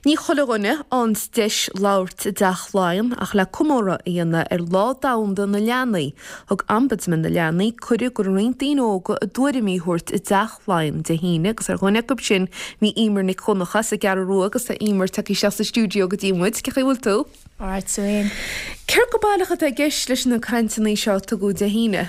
Ní chuile dhuine a fhaigheanns deis labhairt i dTeach Laighean ach le comóradh a dhéanamh ar Lá Domhanda na Leanaí, thug Ombudsman na Leanaí cuireadh go roinnt daoine óga a dtuairimí a thabhairt i dTeach Laighean Dé hAoine agus ar dhuine acu sin bhí Emer Nic Dhonncha as an gCeathrú Rua agus tá Emer tagtha isteach sa stiúideo go dtí muid. Cén chaoi a bhfuil tú? Alright, Susan. Céard go baileach atá i gceist leis na cainteanna seo a tugadh Dé hAoine?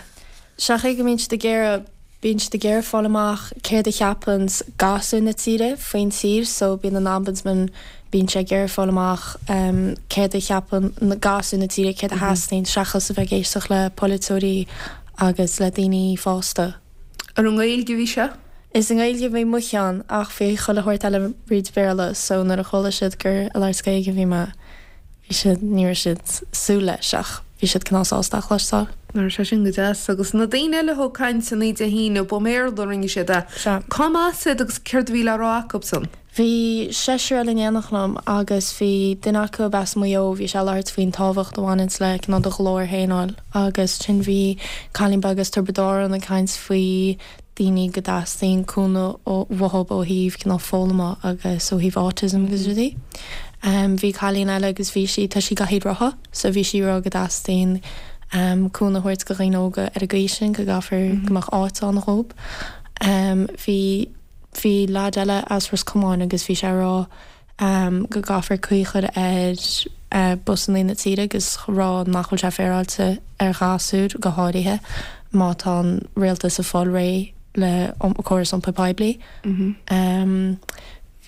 Sé an chaoi go mbíonn siad ag iarraidh Bíonn siad ag iarraidh fáil amach céard a cheapanns gasúir na tíre faoin tír so bíonn an Ombudsman, bíonn sé ag iarraidh fáil amach céard a cheapann gasúir na tíre, céard a theastaíonn seachas a bheith ag éisteacht le polaiteoirí agus le daoine fásta. Ar an nGaeilge a bhí sé? Is i nGaeilge a bhí mo cheann ach bhí chuile shórt eile fríd Bhéarla so nuair a chuala siad gur ag labhairt Gaeilge a bhí mé, Bhí siad, ní raibh siad súil leis ach bhí siad cineál sásta a chloisteáil. Raibh sé sin go deas. Agus na daoine eile a thug cainteanna Dé hAoine, ba i mBéarla a rinne siad é. Sea. Cá mb'as iad agus céard a bhí le rá acu-san? Bhí seisear eile in éineacht liom agus bhí duine acu as Maigh Eo, bhí sé ag labhairt faoin tábhacht a bhaineanns le cineál do ghlór féin a fháil agus ansin bhí cailín beag as Tiobraid Árann ag caint faoi daoine go dteastaíonn cúnamh uathu ó thaobh cineál foghlama agus ó thaobh autism agus rudaí. Bhí cailín eile agus bhí sí, tá sí i gcathaoir rotha so bhí sí ag rá go dteastaíonn cúnamh a thabhairt go dhaoine óga ar an gcaoi sin, go gcaithfear go mbeadh áit ann dhób. Bhí, bhí leaid eile as Ros Comáin agus bhí sé ag rá, go gcaithfear caoi a chur ar busannaí na tíre agus rá nach bhfuil sé féaráilte ar ghasúir, go háirithe má tá an rialtas ag fáil réidh le córas iompair poiblí.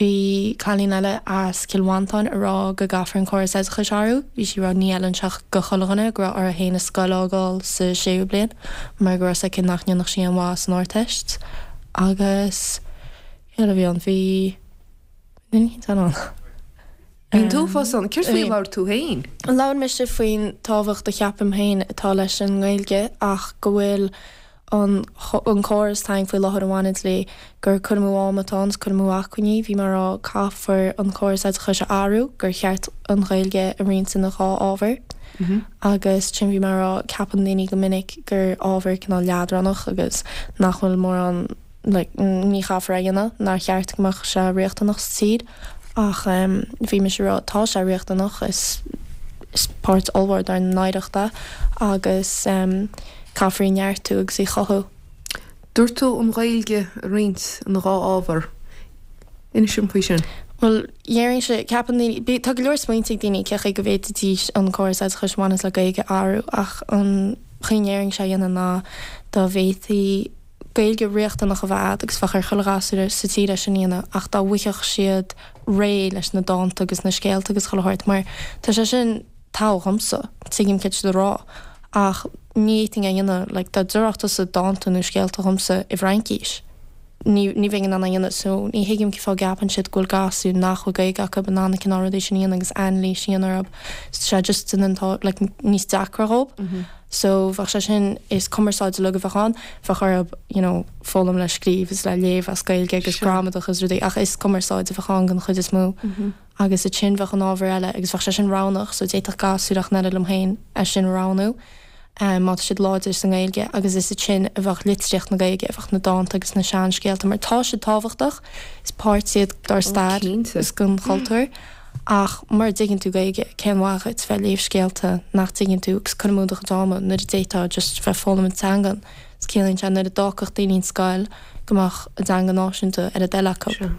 Bhí cailín eile as Cill Mhantáin ag rá go gcaithfear an córas oideachais a athrú. Bhí sí ag rá ní fheileann sé go chuile dhuine go raibh uirthi féin an scoil a fhágáil sa séú bliain mar go raibh 's aici nach ndéanfadh sí aon mhaith san Ardteist. Agus cé eile a bhí ann? Bhí. Bhí an Bhí tú fós ann. Céard faoi a labhair tú féin? Labhair mise faoin tábhacht a cheapaim féin atá leis an nGaeilge ach go bhfuil an an córas atá againn faoi láthair a bhaineann léi, gur cur amú ama atá ann is cur amú acmhainní. Bhí mé ag rá caithfear an córas oideachais a athrú, gur cheart an Ghaeilge a roinnt ina dhá ábhar. Agus ansin bhí mé ag rá ceapann daoine go minic gur ábhar cineál leadránach agus nach bhfuil mórán like ní chaithfear é a dhéanamh, nár cheart go mbeadh sé riachtanach sa tír ach bhí mise ag rá tá sé riachtanach, is is páirt ollmhór dár n-oidhreacht é agus caithfear í neartú agus í chothú. Dúirt tú an Ghaeilge a roinnt ina dhá ábhar. Inis dom faoi sin. Bhuel, déarfainnse, ceapann daoine, bí, tá go leor smaointe ag daoine cé chaoi go bhféadfaidís an córas oideachais a bhaineas le Gaeilge a athrú ach an chaoi a ndéarfainnse é a dhéanamh ná dá bhféadfaí Gaeilge riachtanach a bheith a'd agus bheadh ar chuile ghasúr sa tír é sin a dhéanamh ach dá bhfuigheadh siad réidh leis na dánta agus na scéalta agus chuile shórt mar tá sé sin togha dhomsa, tuigim céard tá siad a rá ach ní fhéadfainn é a dhéanamh like dá déarfadh tusa dánta nó scéalta dhomsa i bhFraincís ní ní bheinn in ann é a dhéanamh so ní thuigim cén fáth a gceapann siad go bhfuil gasúir nach bhfuil Gaeilge acu in ann na cineál rudaí sin a dhéanamh agus anailís a dhéanamh orthu tá sé just in an like níos deacra dhób. So bheadh sé sin, is cumarsáid uilig a bheadh ann, bheadh orthu you know foghlaim le scríobh is le léamh as Gaeilge agus gramadach is rudaí ach is cumarsáid a bheadh ann den chuid is mó. Agus ansin bheadh an ábhar eile agus bheadh sé sin roghnach so d'fhéadfadh gasúr ach an oiread liom féin é sin a roghnú má tá siad láidir sa nGaeilge agus is ansin a bheadh litríocht na Gaeilge, a bheadh na dánta agus na seanscéalta mar tá siad tábhachtach, is páirt iad dár stair is den chultúr. Ach mura dtuigeann tú Gaeilge, cén mhaith dhuit bheith ag léamh scéalta nach dtuigeann tú agus cur amú do chuid ama nuair a d'fhéadfá just bheith ag foghlaim an teangan. Is ciallaíonn sé nuair a d'fhágfadh daoine an scoil go mbeadh a dteanga náisiúnta ar a dtoil acu. Sea.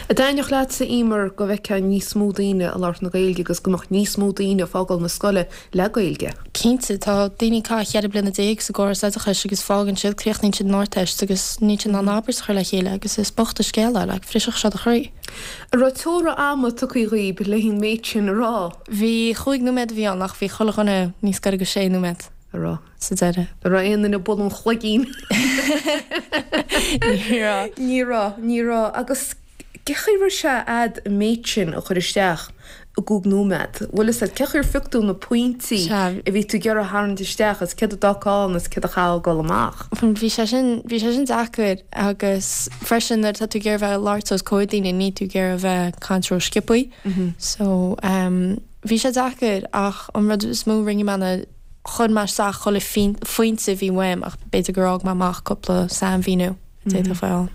An dtaitneodh leatsa, Emer, go bhfeicfeá níos mó daoine ag labhairt na Gaeilge agus go mbeadh níos mó daoine ag fágáil na scoile le Gaeilge? Cinnte. Tá daoine ag caitheamh 14 bliana sa gcóras oideachais agus fágann siad, críochnaíonn siad an Ardteist agus níl siad in ann abairt a chur le chéile agus is bocht an scéal é, like, bhrisfeadh sé do chroí. An raibh teora ama tugtha dhaoib le an méid sin a rá? Bhí, chúig nóiméad a bhí ann ach bhí chuile dhuine níos gaire go sé nóiméad. A raibh. Sa deireadh. An raibh aon duine ag bualadh an chloigín? Ní raibh. Ní raibh, ní raibh. Agus cé chaoi a raibh sé a'd an méid sin a chur isteach i gcúig nóiméad? Bhfuil fhios a'd, cé chaoi ar phioc tú na pointí Sea. a bhí tú ag iarraidh a tharraingt isteach is céard a d'fhágfá ann is céard a chaithfeá a ghoil amach? Bhí sé sin, bhí sé sin deacair agus freisin nuair atá tú ag iarraidh bheith ag labhairt os comhair daoine níl tú ag iarraidh bheith ag caint ró-sciobthaí. So, bhí sé deacair ach an rud is mó a rinne mé ná chuir mé isteach chuile phointe a bhí uaim ach b'fhéidir gur fhág mé amach cúpla sainmhíniú a d'fhéadfadh a bheith ann.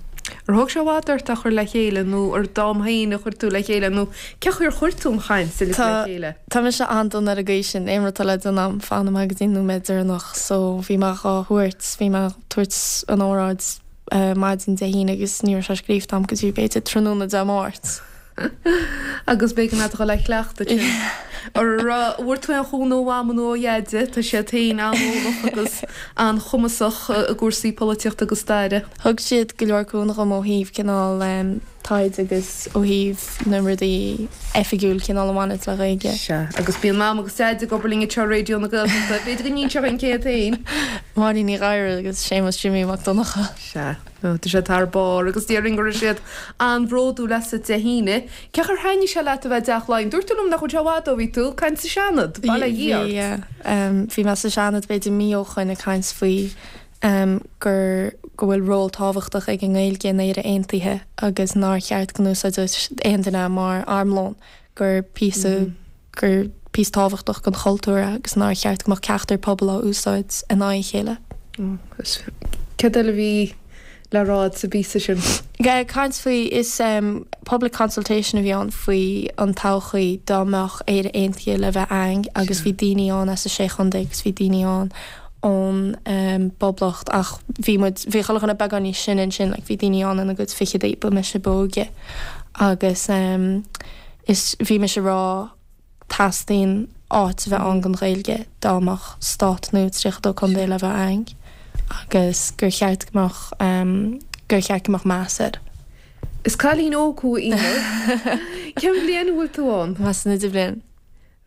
Ar thóg sé i bhfad ort é a chur le chéile nó ar d'am féin a chuir tú le chéile nó cén chaoi ar chuir tú an chaint uilig le chéile? Tá mise an-dona ar an gcaoi sin, aon rud atá le déanamh a'm, fanaim go dtí an nóiméad deireanach so bhí mé dhá thabhairt, bhí mé ag tabhairt an óráid maidin Dé hAoine agus ní raibh sé scríofa a'm go dtí b'fhéidir tráthnóna Dé Máirt. Agus b'éigean leat a dhul a chleachtadh sin. Ar bhfuair tú aon chúnamh ó Mham nó ó Dheaide? Tá siad féin an-eolach agus an-chumasach i gcúrsaí polaitíochta agus staire. Thug siad go leor cúnamh dhom ó thaobh cineál taighde agus ó thaobh na rudaí oifigiúil cineál a bhaineanns le Gaeilge. Sea, agus bíonn Mam agus Deaide ag obair linn anseo ar Raidió na Gaeltachta. B'fhéidir go n-inseoidh an céad féin. Máirín Ní Ghadhra agus Séamus Jimí Mac Donncha. Sea. Tá siad thar barr agus déarfainn go raibh siad an-bhródúil asat Dé hAoine. Cén chaoi ar thaitnigh sé leat a bheith i dTeach Laighean? Dúirt tú liom nach bhfuil sé i bhfad ó bhí tú ag caint sa Seanad, bail ó Dhia ort. Bhí, bhí mé sa Seanad b'fhéidir mí ó shoin ag caint faoi gur, go bhfuil ról tábhachtach ag an nGaeilge in Éire Aontaithe agus nár cheart go n-úsáidfeadh aon duine é mar armlón, gur píosa, gur píosa tábhachtach den chultúr é agus nár cheart go mbeadh ceachtar pobal á úsáid in aghaidh a chéile. Agus céard eile a bhí le rá agat sa bpíosa sin? Caint faoi, is public consultation a bhí ann faoi an todhchaí dá mbeadh Éire Aontaithe le bheith a'ainn agus bhí daoine ann as a sé chontae agus bhí daoine ann ón bPoblacht ach bhí muid, bhí chuile dhuine beagán níos sine ansin, like bhí daoine ann ina gcuid fichidí, ba mise ba óige agus. Is bhí mise ag rá teastaíonn áit a bheith ann don Ghaeilge dá mbeadh stát nua 32 contae le bheith a'ainn agus gur cheart go mbeadh gur cheart go mbeadh meas air. Is cailín óg thú a Eimear. Cén bhliain a bhfuil tú ann? Tá mé san idirbhliain.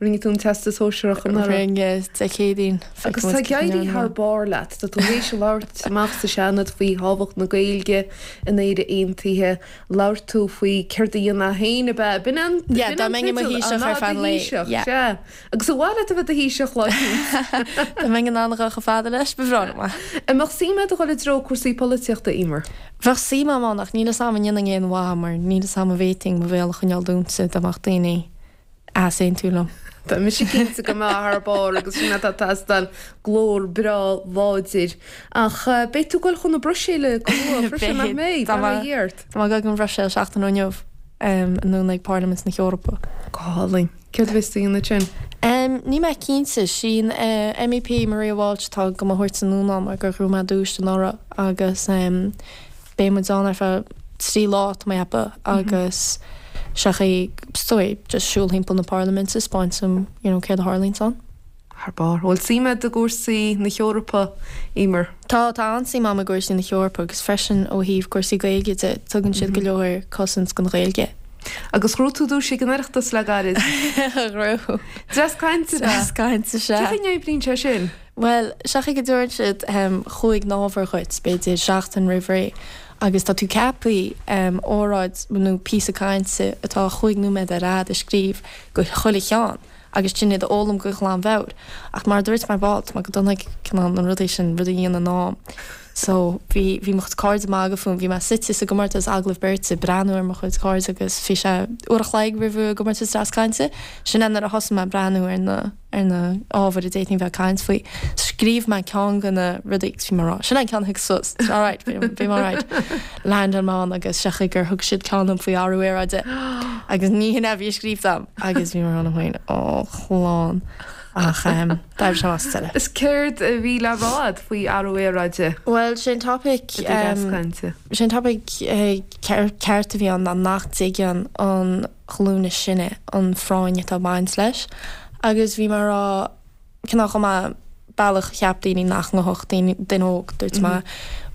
Rinne tú an Teastas Sóisearach anuraidh. Rinne, Dé Céadaoin. Agus tá ag éirí thar barr leat. Tá tú théis labhairt amach sa Seanad faoi thábhacht na Gaeilge in Éire Aontaithe. Labhair tú faoi céard a dhéanfá féin ab ea? B'in an Yeah, dá mbeinn i mo Thaoiseach ar feadh an lae. Yeah. Sea. Agus ar mhaith leat a bheith i do Thaoiseach lá eicínt? Dá mbeinn in ann a dhul chomh fada leis, ba bhreá liom é. An mbeadh suim agat a dhul i dtreo cúrsaí polaitíochta, Eimear? Bheadh suim agam ann ach níl 'fhios a'm an ndéanfainn aon mhaith mar níl 'fhios a'm an bhféadfainn mo bhéal a choinneáil dúnta dá mbeadh daoine easaontú liom. Tá mise cinnte go mbeifeá thar barr agus sin atá ag teastáil, glór breá láidir. Ach beidh tú ag dul chun na Bruiséile go luath freisin, nach mbeidh? Bail ó Dhia ort. Tá mé ag dul go an Bhruiséil seachtain ó inniu, anonn ag Parlaimint na hEorpa. Go hálainn. Céard a bheas tú a dhéanamh ansin? Níl mé cinnte. Sí an MEP Maria Walsh atá do mo thabhairt anonn ann mar gur ghnóthaigh mé duais anuraidh agus Beidh muid ann ar feadh 3 lá, tá mé ag ceapadh, agus sé chaoi, is dóigh, just siúl thimpeall na parlaiminte, 'spáint dom, you know, céard a tharlaíonns ann. Thar barr. Bhfuil suim agat i gcúrsaí na hEorpa, Eimear? Tá, tá an-suim agam i gcúrsaí na hEorpa agus freisin ó thaobh cúrsaí Gaeilge de, tugann siad go leor cosaint don Ghaeilge. Agus ghnóthaigh tú duais ag an Oireachtas le gairid. Ghnóthaigh. Dreas cainte, ab ea? Dreas cainte, sea. Cén chaoi a n-oibríonn sé sin? Bhuel, sé an chaoi go dtabharann siad chúig n-ábhar dhuit, b'fhéidir seachtain roimh ré, agus tá tú ceaptha óráid nó píosa cainte atá chúig nóiméad ar fhad a scríobh go chuile cheann agus sin iad a fhoghlaim go glanmheabhair. Ach mar a dúirt mé ar ball, tá mé go dona ag cineál na rudaí sin, rudaí a dhéanamh in am. So, bhí, bhí mo chuid cairde ag magadh fúm, bhí mé suite sa gcomórtas agallamh beirte, ag breathnú ar mo chuid cairde agus bhí sé uair a chloig roimh an gcomórtas dreas cainte, sin é nuair a thosaigh mé ag breathnú ar na, ar na ábhair a d'fhéadfainn bheith ag caint faoi. Scríobh mé ceann de na rudaí agus bhí mé ag rá, sin é an ceann a thig suas, it's alright, beidh mé alright. Landáil mé ann agus sé an chaoi gur thug siad ceann dom faoi athrú aeráide agus ní hin é a bhí scríofa agam agus bhí mé ag rá liom féin, ó chlann. Ach d'oibrigh sé amach sa deireadh. Is céard a bhí le rá agat faoi athrú aeráide? Bhuel, sé an topaic, I do dhreas cainte. sé an topaic ceart a bhí ann ná nach dtuigeann an ghlúin is sine an phráinn atá ag baint leis agus bhí mé ag rá cineál chomh maith bealach a cheap daoine nach ngabhfadh daoine duine óg dúirt mé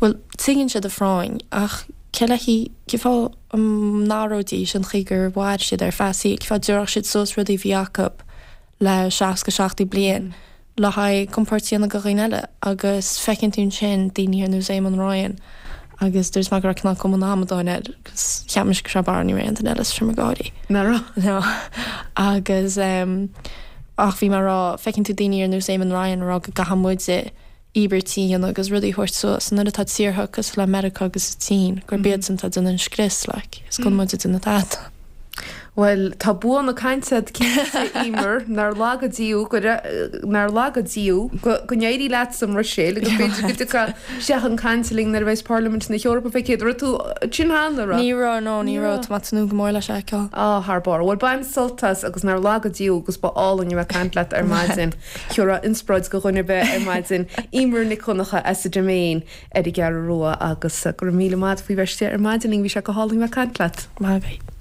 bhuel tuigeann siad an phráinn ach cé le cén fáth a n-athróidís an chaoi gur mhair siad ar feadh a saoil cén fáth a dtabharfadh siad suas rudaí a bhí acu le 60 70 bliain le haghaidh compord a dhéanamh do dhaoine eile agus feiceann tú ansin daoine ar nós Éamon Ryan agus dúirt mé go raibh cineál cuma an amadáin air agus cheap mise go raibh barr ní raibh aon duine eile sa seomra gáirí. Nach raibh? No. Agus ehm ach bhí mé ag rá feiceann tú daoine ar nós Éamon Ryan ag rá go gcaithfidh muide íobairtí a dhéanamh agus rudaí a thabhairt suas nuair atá tíortha cosúil le Meiriceá agus an tSín gurb iadsan atá ag déanamh an scrios like is gan muid ag déanamh tada. Bhuel, tá bua na cainte agat cinnte, Emer, nár laga Dia thú, go, nár laga Dia thú, go, go n-éirí leat sa mBruiséil agus b'fhéidir go dtiocfá isteach chun cainte linn nuair a bheas Parlaimint na hEorpa fé chéad. Raibh tú ansin cheana, raibh? Ní raibh, no, ní raibh, tá mé ag tnúth go mór leis a fheiceáil. Á, thar barr. Bhuel, bain sult as agus nár laga Dia thú agus ba álainn a bheith ag caint leat ar maidin. Thiúrfá inspioráid do dhuine ar bith ar maidin. Emer Nic Dhonncha as an Diméin ar an gCeathrú Rua agus go raibh míle maith agat faoi bheith istigh ar maidin linn, bhí sé go hálainn a bheith ag caint leat. Maith agat.